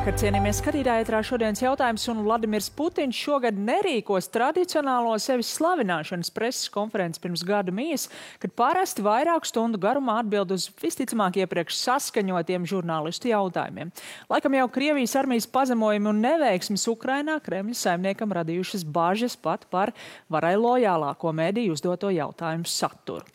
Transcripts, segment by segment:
Labvakar, cienījamies skatītāji, ētrā šodienas jautājums, un Vladimirs Putins šogad nerīkos tradicionālo sevis slavināšanas preses konferenci pirms gada mijas, kad parasti vairāku stundu garumā atbild uz visticamāk iepriekš saskaņotiem žurnālistu jautājumiem. Laikam jau Krievijas armijas pazemojumi un neveiksmes Ukrainā Kremļa saimniekam radījušas bažas pat par varai lojālāko mediju uzdoto jautājumu saturu.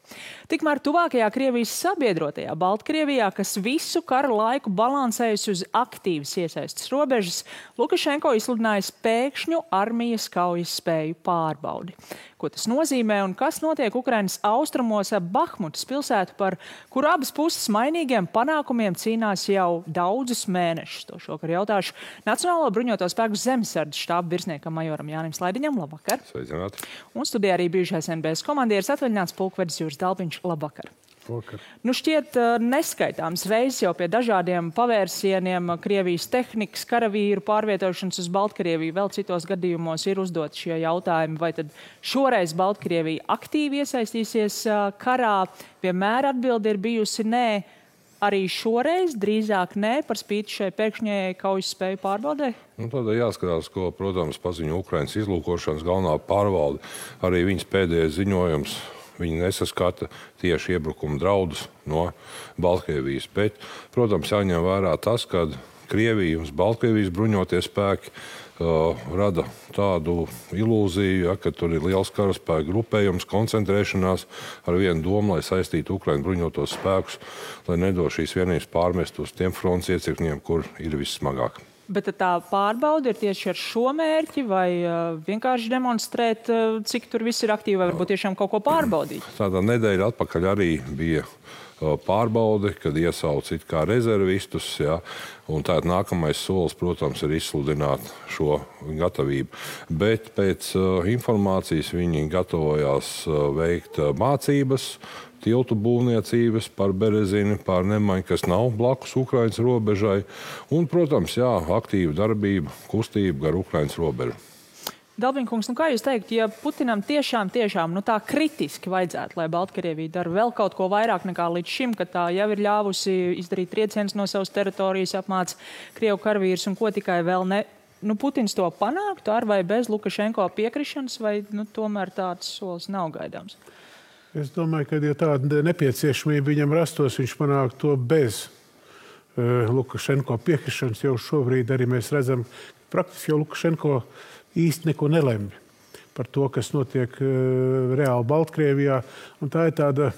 Tikmēr tuvākajā Krievijas sabiedrotajā Baltkrievijā, kas visu kara laiku balansējusi uz aktīvas iesaistas robežas, Lukašenko izsludināja pēkšņu armijas kaujas spēju pārbaudi. Ko tas nozīmē un kas notiek Ukrainas austrumos ap Bahmutas pilsētu, par kuru abas puses mainīgiem panākumiem cīnās jau daudzus mēnešus? To šokar jautāšu Nacionālo bruņoto spēku zemesardzes štāba virsniekam majoram Jānim Slaidiņam. Labvakar! Sveicināti! Un studijā arī bijušais NBS komandieris atvaļināts pulkvedis Juris Dalpiņš. Labvakar! Nu šķiet neskaitāms reizes jau pie dažādiem pavērsieniem Krievijas tehnikas, karavīru pārvietošanas uz Baltkrieviju, vēl citos gadījumos ir uzdot šie jautājumi, vai tad šoreiz Baltkrievija aktīvi iesaistīsies karā. Vienmēr atbilde ir bijusi nē, arī šoreiz drīzāk nē, par spīti šai pēkšņajai kaujas spēju pārbaudē? Tādēļ jāskatās, ko, protams, paziņo Ukrainas izlūkošanas galvenā pārvalde, arī viņas pēdējais ziņojums. Viņi nesaskata tieši iebrukuma draudus no Baltkrievijas. Bet, protams, jāņem vērā tas, ka Krievija un Baltkrievijas bruņotie spēki rada tādu ilūziju, ka tur ir liels karaspēku grupējums, koncentrēšanās ar vienu domu, lai saistītu Ukraiņu bruņotos spēkus, lai nedo šīs vienības pārmest uz tiem fronts iecirkņiem, kur ir vissmagāk. Bet tā pārbaude ir tieši ar šo mērķi, vai vienkārši demonstrēt, cik tur viss ir aktīvi, vai varbūt tiešām kaut ko pārbaudīt? Tādā nedēļa atpakaļ arī bija pārbaude, kad iesauc it kā rezervistus, ja, un tātad nākamais solis, protams, ir izsludināt šo gatavību. Bet pēc informācijas viņi gatavojās veikt mācības, tiltu būvniecības par Berezini, par Nemaņu, kas nav blakus Ukrainas robežai, un, protams, jā, aktīva darbība, kustība gar Ukrainas robežu. Dalbiņkungs, kā jūs teikt, ja Putinam tiešām tā kritiski vajadzētu, lai Baltkrievija dara vēl kaut ko vairāk nekā līdz šim, kad tā jau ir ļāvusi izdarīt triecienus no savas teritorijas, apmāca Krievu karavīrus un ko tikai vēl ne, Putins to panāktu ar vai bez Lukašenko piekrišanas, vai tomēr tāds solis nav gaidāms? Es domāju, ka, ja tāda nepieciešamība viņam rastos, viņš panāk to bez Lukašenko piekrišanas. Jau šobrīd arī mēs redzam, praktiski jau Lukašenko īsti neko nelemj par to, kas notiek reāli Baltkrievijā. Un tā ir tāda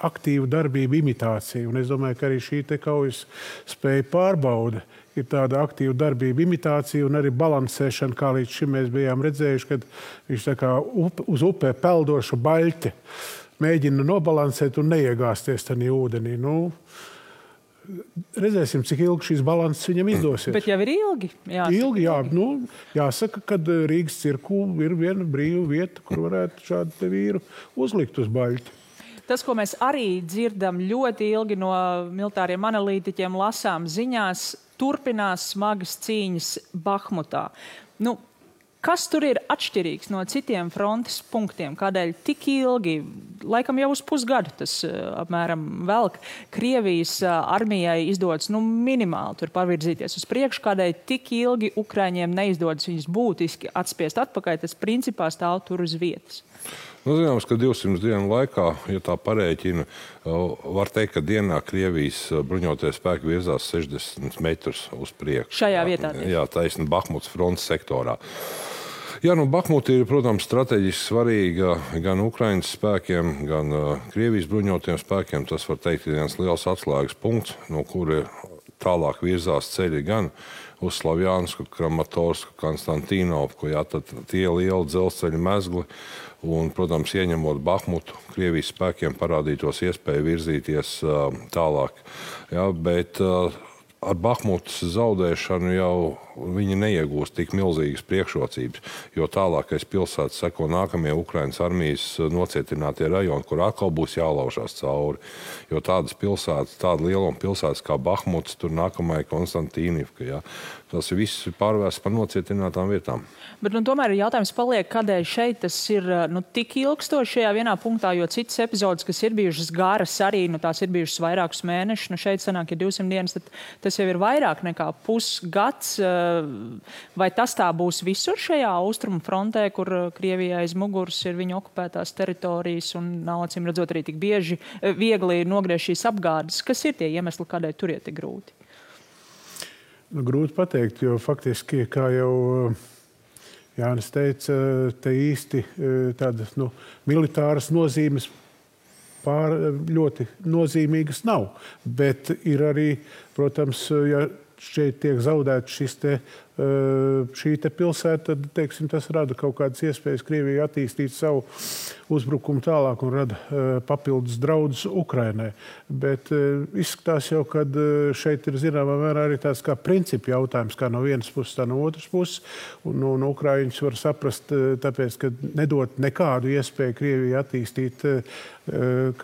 aktīva darbība imitācija. Un es domāju, ka arī šī te kaujas spēja pārbaude ir tāda aktīva darbība imitācija un arī balansēšana, kā līdz šim mēs bijām redzējuši, kad viņš tā kā uz upē peldoša baļķe mēģina nobalansēt un neiegāsties tajā ūdenī. Redzēsim, cik ilgi šīs balanses viņam izdosies. Bet jau ir ilgi. Ilgi, jā. Jāsaka, ka Rīgas cirku ir viena brīva vieta, kur varētu šādu te vīru uzlikt uz baļķi. Tas, ko mēs arī dzirdam ļoti ilgi no militāriem analītiķiem, lasām ziņās, turpinās smagas cīņas Bahmutā. Kas tur ir atšķirīgs no citiem frontes punktiem? Kādēļ tik ilgi, laikam jau uz pusgadu tas apmēram velk, Krievijas armijai izdodas minimāli tur pavirzīties uz priekšu, kādēļ tik ilgi Ukraiņiem neizdodas viņus būtiski atspiest atpakaļ, tas principā stāv tur uz vietas? Zināms, ka 200 dienu laikā, ja tā parēķina, var teikt, ka dienā Krievijas bruņotie spēki virzās 60 metrus uz priekšu. Šajā vietā? Jā, taisni Bahmutas frontes sektorā. Jā, Bahmuta ir, protams, strateģiski svarīga gan Ukrainas spēkiem, gan Krievijas bruņotiem spēkiem. Tas, var teikt, ir viens liels atslēgas punkts, no kura tālāk virzās ceļi gan uz Slavjansku, Kramatorsku, Konstantīnovku, tad tie lieli dzelzceļa mezgli. Un, protams, ieņemot Bahmutu, Krievijas spēkiem parādītos iespēju virzīties tālāk. Ja, bet ar Bahmutas zaudēšanu jau viņi neiegūst tik milzīgas priekšrocības, jo tālākais pilsētas seko nākamie Ukrainas armijas nocietinātie rajoni, kur atkal būs jālaužās cauri. Jo tādas pilsētas, tāda lieluma pilsētas kā Bahmuts, tur nākamai Konstantīnivka, ja. Tas viss pārvērsts par nocietinātām vietām. Bet tomēr jautājums paliek, kādēļ šeit tas ir tik ilgstoši šajā vienā punktā, jo citas epizodes, kas ir bijušas garas arī, tās ir bijušas vairākus mēnešus, šeit sanāk, ja 200 dienas, tad tas jau ir vairāk nekā pusgads. Vai tas tā būs visur šajā austrumu frontē, kur Krievijai aiz muguras ir viņu okupētās teritorijas un nav acīm redzot arī tik viegli nogriezt šīs apgādes? Kas ir tie iemesli, kādēļ tur ir tik grūti? Grūti pateikt, jo faktiski, kā jau Jānis teica, te īsti tādas militāras nozīmes ļoti nozīmīgas nav. Bet ir arī, protams, ja šeit tiek zaudēts šī pilsēta, tad, teiksim, tas rada kaut kādas iespējas Krievijai attīstīt savu uzbrukumu tālāk un rada papildus draudus Ukrainai. Bet izskatās jau, ka šeit ir zināmā mērā arī tāds kā principu jautājums, kā no vienas puses, tā no otras puses. Un Ukraiņus var saprast, tāpēc, ka nedot nekādu iespēju Krievijai attīstīt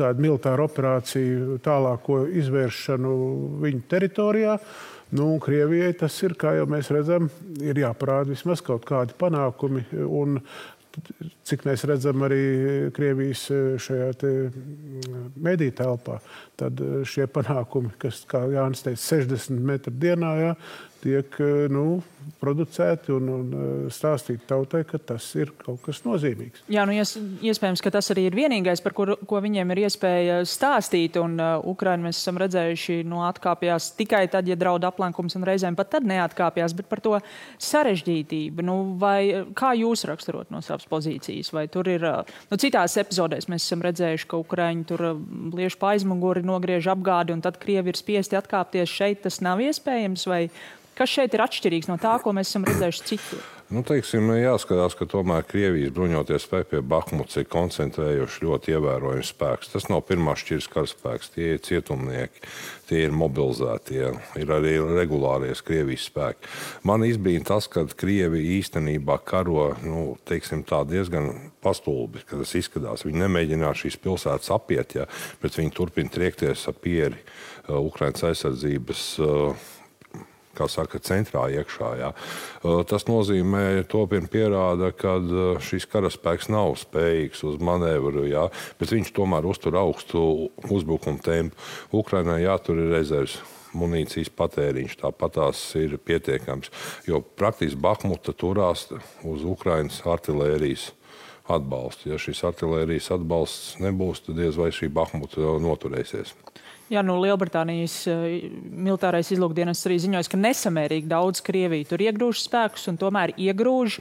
kādu militāru operāciju tālāko izvēršanu viņu teritorijā. Krievijai tas ir, kā jau mēs redzam, ir jāparāda vismaz kaut kādi panākumi. Un cik mēs redzam arī Krievijas šajā mediju telpā, tad šie panākumi, kas, kā Jānis teica, 60 metru dienā, tiek producēti un stāstīt tautai, ka tas ir kaut kas nozīmīgs. Jā, iespējams, ka tas arī ir vienīgais, par ko viņiem ir iespēja stāstīt, un Ukraina mēs esam redzējuši, atkāpjās tikai tad, ja draud aplenkums, un reizēm pat tad neatkāpjās, bet par to sarežģītību. Vai kā jūs raksturot no savas pozīcijas? Vai tur ir, citās epizodēs mēs esam redzējuši, ka Ukraiņi tur liež pa aizmuguri, nogriež apgādi, un tad Krievi ir spiesti atkāpties. Šeit tas nav iespējams, vai kas šeit ir atšķirīgs no tā, ko mēs esam redzējuši citur? Teiksim, jāskatās, ka tomēr Krievijas bruņoties spēki pie Bahmuts ir koncentrējuši ļoti ievērojams spēks. Tas nav pirmās šķiras karaspēks, tie ir cietumnieki, tie ir mobilizētie, ir arī regulāries Krievijas spēki. Man izbīna tas, ka Krievi īstenībā karo, teiksim tā, diezgan pastulbi, kad tas izskatās. Viņi nemēģinās šīs pilsētas apiet, bet viņi turpina triekties ap pieri Ukrainas aizsardzības kā saka, centrā iekšā. Tas nozīmē, topien pierāda, ka šis karaspēks nav spējīgs uz manevru, bet viņš tomēr uztur augstu uzbrukumu tempu. Ukrainai jātur ir rezerves munīcijas patēriņš, tāpat tās ir pietiekams, jo praktiski Bahmuta turās uz Ukrainas artilērijas atbalstu. Ja šis artilērijas atbalsts nebūs, tad diez vai šī Bahmuta noturēsies. Jā, Lielbritānijas militārais izlūkdienests arī ziņojas, ka nesamērīgi daudz Krieviju tur iegrūž spēkus un tomēr iegrūž.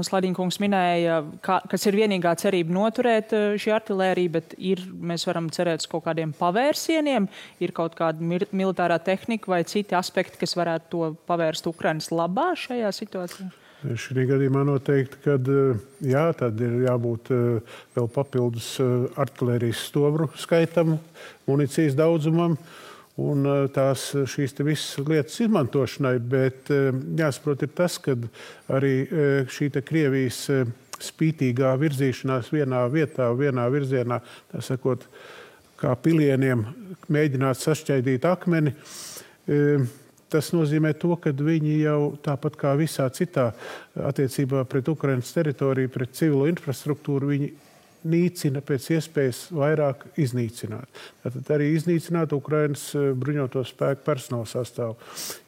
Sladiņkungs minēja, kas ir vienīgā cerība noturēt šī artilērija, bet mēs varam cerēt uz kaut kādiem pavērsieniem, ir kaut kāda militārā tehnika vai citi aspekti, kas varētu to pavērst Ukrainas labā šajā situācijā? Šī gadījumā noteikti, ka tad ir jābūt vēl papildus artilērijas stobru skaitam, munīcijas daudzumam un šīs visas lietas izmantošanai, bet jāsaprot ir tas, ka arī šī Krievijas spītīgā virzīšanās vienā vietā, vienā virzienā, tā sakot, kā pilieniem mēģināt sašķaidīt akmeni, tas nozīmē to, ka viņi jau tāpat kā visā citā attiecībā pret Ukrainas teritoriju, pret civilo infrastruktūru, viņi nīcina pēc iespējas vairāk iznīcināt. Tātad arī iznīcināt Ukrainas bruņoto spēku personāla sastāvu.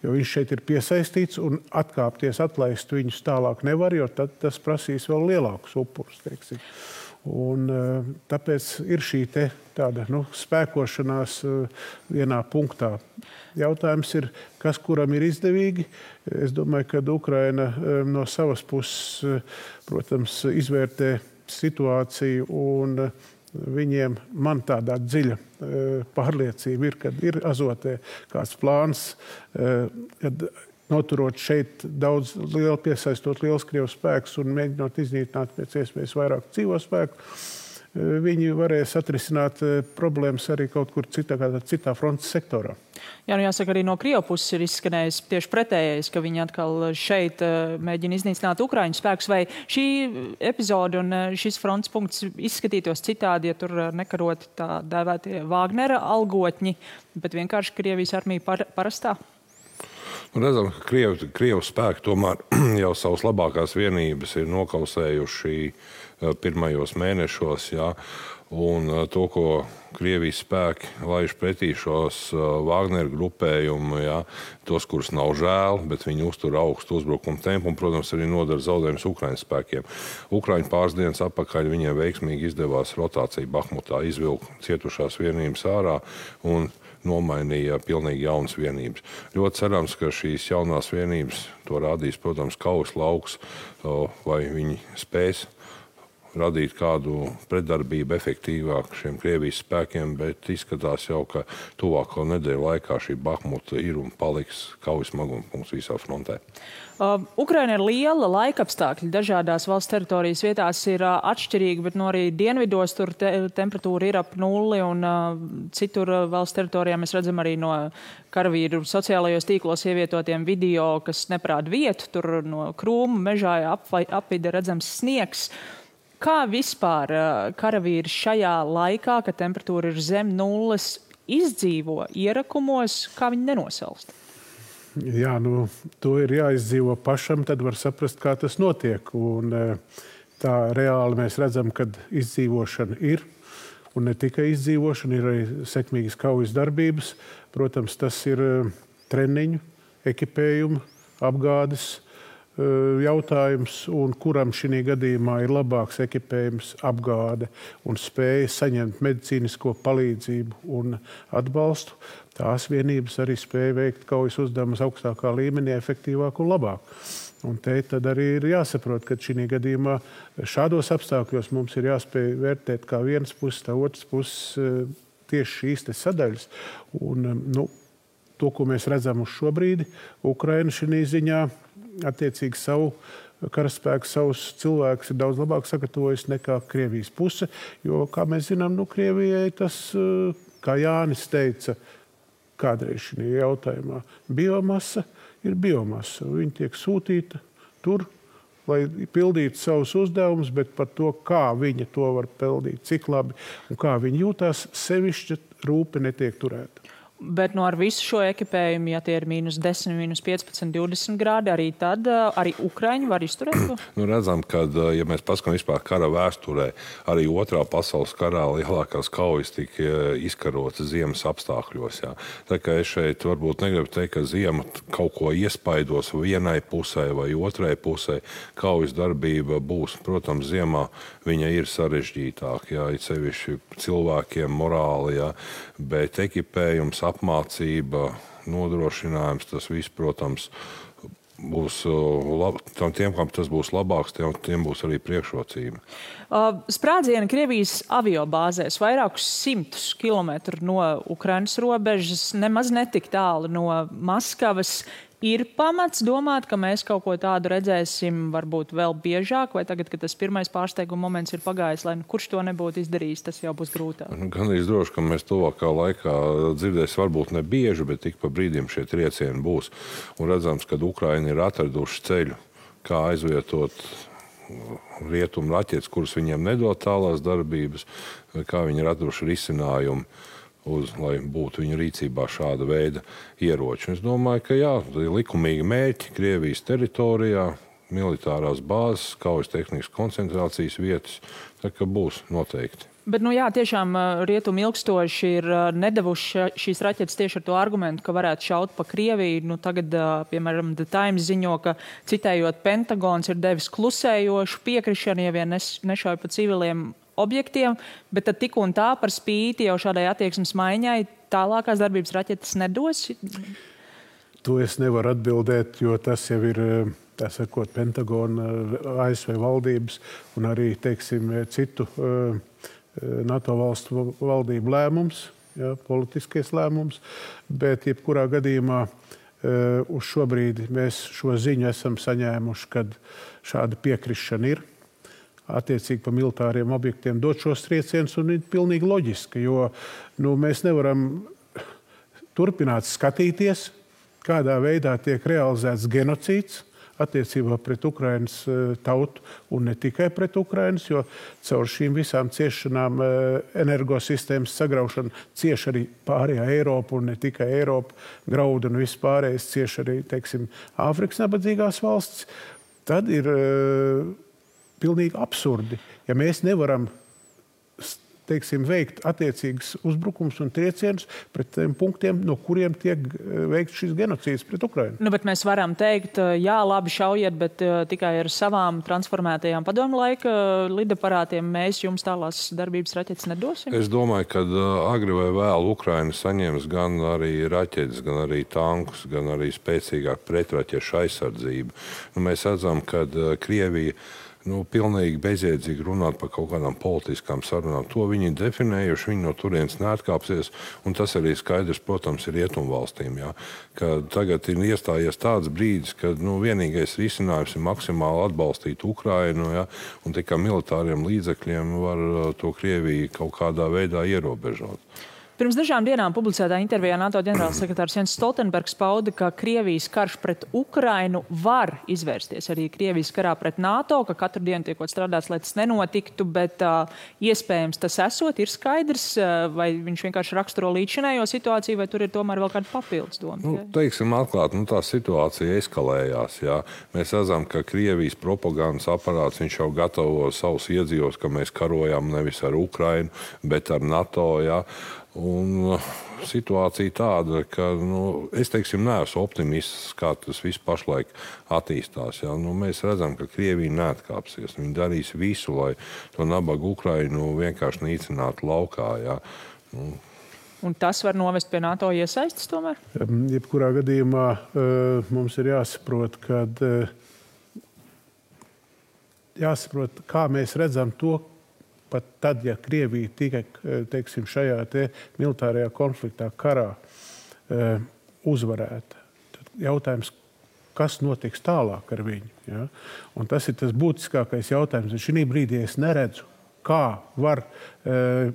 Jo viņš šeit ir piesaistīts un atkāpties, atlaist viņus tālāk nevar, jo tad tas prasīs vēl lielākus upurus, teiksim. Un tāpēc ir šī tāda spēkošanās vienā punktā. Jautājums ir, kas kuram ir izdevīgi. Es domāju, ka Ukraina no savas puses, protams, izvērtē situāciju un viņiem, man tādā dziļa pārliecība ir, kad ir Azotē kāds plāns, kad noturot šeit daudz piesaistot liels Krievu spēkus un mēģinot iznīcināt pēc iespējas vairāk dzīvo spēku, viņi varēs atrisināt problēmas arī kaut kur citā frontes sektorā. Jā, nu jāsaka, arī no Krievu puses ir izskanējis tieši pretējais, ka viņi atkal šeit mēģina iznīcināt Ukraiņu spēkus. Vai šī epizode un šis frontes punkts izskatītos citādi, ja tur nekaroti tā dēvētie Wagnera algotņi, bet vienkārši Krievijas armija parastā? Redzam, ka Krievu spēki tomēr jau savas labākās vienības ir nokausējuši pirmajos mēnešos, jā, un to, ko Krievijas spēki laiž pretī šos Wagner grupējumu, jā, tos, kurus nav žēl, bet viņi uztur augstu uzbrukumu tempu un, protams, arī nodara zaudējumus Ukraiņas spēkiem. Ukraiņu pāris dienas atpakaļ viņiem veiksmīgi izdevās rotācija Bahmutā, izvilkt cietušās vienības ārā un nomainīja pilnīgi jaunas vienības. Ļoti cerams, ka šīs jaunās vienības to rādīs, protams, kaujas lauks, vai viņi spēs radīt kādu pretdarbību efektīvāk šiem Krievijas spēkiem, bet izskatās jau, ka tuvāko nedēļu laikā šī Bahmuta ir un paliks kaujas smaguma punkts visā frontē. Ukraina ir liela, laikapstākļi dažādās valsts teritorijas vietās ir atšķirīgi, bet no arī dienvidos tur temperatūra ir ap nulli un citur valsts teritorijā mēs redzam arī no karavīru sociālajos tīklos ievietotiem video, kas neparāda vietu, tur no krūmu mežā apvide redzams sniegs. Kā vispār karavīri šajā laikā, kad temperatūra ir zem nulles, izdzīvo ierakumos, kā viņi nenosalst? Jā, nu, to ir jāizdzīvo pašam, tad var saprast, kā tas notiek. Un tā reāli mēs redzam, ka izdzīvošana ir. Un ne tikai izdzīvošana, ir arī sekmīgas kaujas darbības. Protams, tas ir treniņu, ekipējumu, apgādes jautājums, un kuram šī gadījumā ir labāks ekipējums, apgāde un spēja saņemt medicīnisko palīdzību un atbalstu. Tās vienības arī spēja veikt kaujas uzdevumus augstākā līmenī, efektīvāk un labāk. Un te tad arī ir jāsaprot, ka šī gadījumā šādos apstākļos mums ir jāspēj vērtēt kā vienas puses, tā otras puses tieši šīs te sadaļas. Un, to, ko mēs redzam uz šo brīdi, Ukraina šī ziņā attiecīgi savu karaspēku, savus cilvēkus ir daudz labāk sagatavojis nekā Krievijas puse, jo, kā mēs zinām, Krievijai tas, kā Jānis teica, kādreiz šī jautājumā, biomasa ir biomasa. Viņa tiek sūtīta tur, lai pildītu savus uzdevumus, bet par to, kā viņa to var pildīt, cik labi un kā viņa jūtās, sevišķi rūpe netiek turēta. Bet ar visu šo ekipējumu, ja tie ir -10, -15, 20 grādi, arī tad arī Ukraiņi var izturēt to? Redzam, ka, ja mēs paskatām vispār kara vēsturē, arī Otrā pasaules karā lielākās kaujas tika izkarotas ziemas apstākļos. Jā. Tā kā es šeit varbūt negribu teikt, ka ziema kaut ko iespaidos vienai pusē vai otrai pusē. Kaujas darbība būs, protams, ziemā viņa ir sarežģītāka, jā, it sevišķi cilvēkiem morāli, jā, bet ekipējums, apmācība, nodrošinājums, tas viss, protams, būs tiem, kam tas būs labāks, tiem būs arī priekšrocība. Sprādzieni Krievijas aviobāzēs vairākus 100 kilometru no Ukrainas robežas, nemaz netik tālu no Maskavas. Ir pamats domāt, ka mēs kaut ko tādu redzēsim varbūt vēl biežāk, vai tagad, kad tas pirmais pārsteiguma moments ir pagājis, lai kurš to nebūtu izdarījis, tas jau būs grūtāk? Gan arī droši, ka mēs tuvākā laikā dzirdēsim varbūt ne bieži, bet tik pa brīdim šie triecieni būs. Un redzams, ka Ukraina ir atraduši ceļu, kā aizvietot rietumu raķetes, kuras viņiem nedod tālās darbības, kā viņi ir atraduši risinājumu, lai būtu viņu rīcībā šāda veida ieroči. Es domāju, ka jā, likumīgi mērķi Krievijas teritorijā, militārās bāzes, kaujas tehnikas koncentrācijas vietas, tā kā būs noteikti. Bet, tiešām rietumi ilgstoši ir nedevuši šīs raķetes tieši ar to argumentu, ka varētu šaut pa Krieviju. Tagad, piemēram, The Times ziņo, ka citējot Pentagons ir devis klusējošu piekrišanu, ja vien nešauj pa civiliem objektiem, bet tad tik un tā par spīti jau šādai attieksmes maiņai tālākās darbības raķetes nedos? To es nevaru atbildēt, jo tas jau ir, tā sakot, Pentagona, ASV valdības un arī, teiksim, citu NATO valstu valdību lēmums, politiskais lēmums, bet jebkurā gadījumā uz šo brīdi mēs šo ziņu esam saņēmuši, kad šāda piekrišana ir. attiecīgi pa militāriem objektiem dot šos triecienus, un ir pilnīgi loģiski, jo mēs nevaram turpināt skatīties, kādā veidā tiek realizēts genocīds attiecībā pret Ukrainas tautu un ne tikai pret Ukrainas, jo caur šīm visām ciešanām energosistēmas sagraušana cieš arī pārējā Eiropa un ne tikai Eiropa, graudu un viss pārējais cieš arī, teiksim, Āfrikas nabadzīgās valstis, tad ir pilnīgi absurdi, ja mēs nevaram teiksim, veikt attiecīgas uzbrukums un triecienus pret tiem punktiem, no kuriem tiek veikts šis genocīds pret Ukrainu. Bet mēs varam teikt, jā, labi šaujiet, bet tikai ar savām transformētajām padomu laika lidaparātiem mēs jums tālās darbības raķetes nedosim? Es domāju, ka agri vai vēl Ukraina saņems gan arī raķetes, gan arī tankus, gan arī spēcīgāk pretraķešu aizsardzību. Mēs redzam, ka Krievija pilnīgi bezjēdzīgi runāt par kaut kādām politiskām sarunām. To viņi ir definējuši, viņi no turienes neatkāpsies, un tas arī skaidrs, protams, ir rietumvalstīm. Ja, ka tagad ir iestājies tāds brīdis, kad vienīgais risinājums ir maksimāli atbalstīt Ukrainu, ja, un tikai militāriem līdzekļiem var to Krieviju kaut kādā veidā ierobežot. Pirms dažām dienām publicētā intervijā NATO ģenerālsekretārs Jens Stoltenbergs pauda, ka Krievijas karš pret Ukrainu var izvērsties arī Krievijas karā pret NATO, ka katru dienu tiekot strādāts, lai tas nenotiktu, bet iespējams tas esot, ir skaidrs, vai viņš vienkārši raksturo līdzinējo situāciju, vai tur ir tomēr vēl kāda papildus doma? Teiksim atklāt, tā situācija eskalējās. Jā. Mēs redzam, ka Krievijas propagandas aparāts, viņš jau gatavo savus iedzīvos, ka mēs karojam nevis ar Ukrainu, bet ar NATO, jā. Un situācija tāda, ka es neesmu optimists, kā tas viss pašlaik attīstās. Ja? Mēs redzam, ka Krievija neatkāpsies. Viņi darīs visu, lai to nabagu Ukrainu vienkārši nīcinātu laukā. Ja? Un tas var novest pie NATO iesaistes tomēr? Jebkurā gadījumā mums ir jāsaprot, kā mēs redzam to, pat tad, ja Krievija tikai, teiksim, šajā militārajā konfliktā karā uzvarēta, tad jautājums, kas notiks tālāk ar viņu. Ja? Un tas ir tas būtiskākais jautājums. Šī brīdī es neredzu, kā var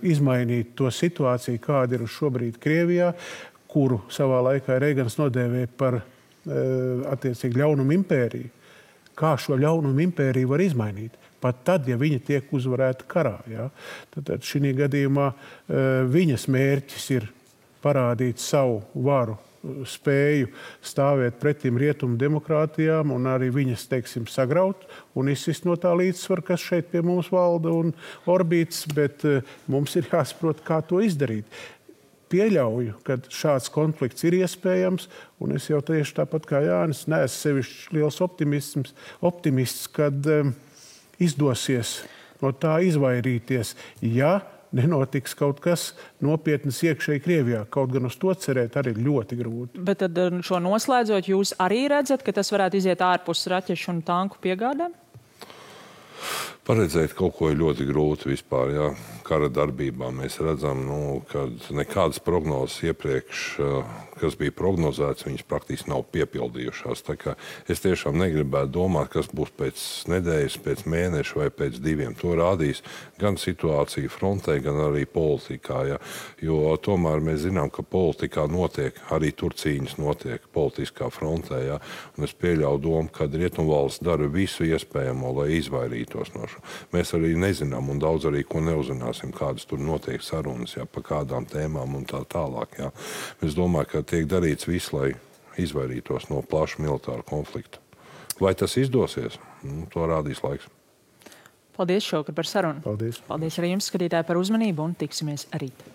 izmainīt to situāciju, kāda ir šobrīd Krievijā, kuru savā laikā Reigans nodēvēja par attiecīgi ļaunumu impēriju. Kā šo ļaunumu impēriju var izmainīt? Pat tad, ja viņa tiek uzvarēta karā. Ja? Tad šī gadījumā viņas mērķis ir parādīt savu varu, spēju stāvēt pretim rietumu demokrātijām un arī viņas, teiksim, sagraut un izsist no tā līdzsvara, kas šeit pie mums valda un orbīts, bet mums ir jāsaprot, kā to izdarīt. Pieļauju, ka šāds konflikts ir iespējams, un es jau tieši tāpat kā Jānis neesmu sevišķi liels optimists, kad izdosies no tā izvairīties, ja nenotiks kaut kas nopietnas iekšēji Krievijā. Kaut gan uz to cerēt arī ļoti grūti. Bet tad šo noslēdzot, jūs arī redzat, ka tas varētu iziet ārpus raķešu un tanku piegādēm? Paredzēt kaut ko ir ļoti grūti vispār. Jā. Kara darbībā mēs redzam, ka nekādas prognozes iepriekš, kas bija prognozētas, viņas praktiski nav piepildījušās. Tā kā es tiešām negribētu domāt, kas būs pēc nedēļas, pēc mēneša vai pēc 2. To rādīs gan situācija frontē, gan arī politikā. Jā. Jo tomēr mēs zinām, ka politikā notiek, arī tur cīņas notiek politiskā frontē. Jā. Un es pieļauju domu, ka rietumvalsts dara visu iespējamo, lai izvairītos no šo. Mēs arī nezinām un daudz arī ko neuzzināsim, kādas tur notiek sarunas, jā, pa kādām tēmām un tā tālāk. Jā. Es domāju, ka tiek darīts viss, lai izvairītos no plaša militāra konflikta. Vai tas izdosies? To rādīs laiks. Paldies šovakar par sarunu. Paldies. Paldies arī jums, skatītāji, par uzmanību un tiksimies rīt.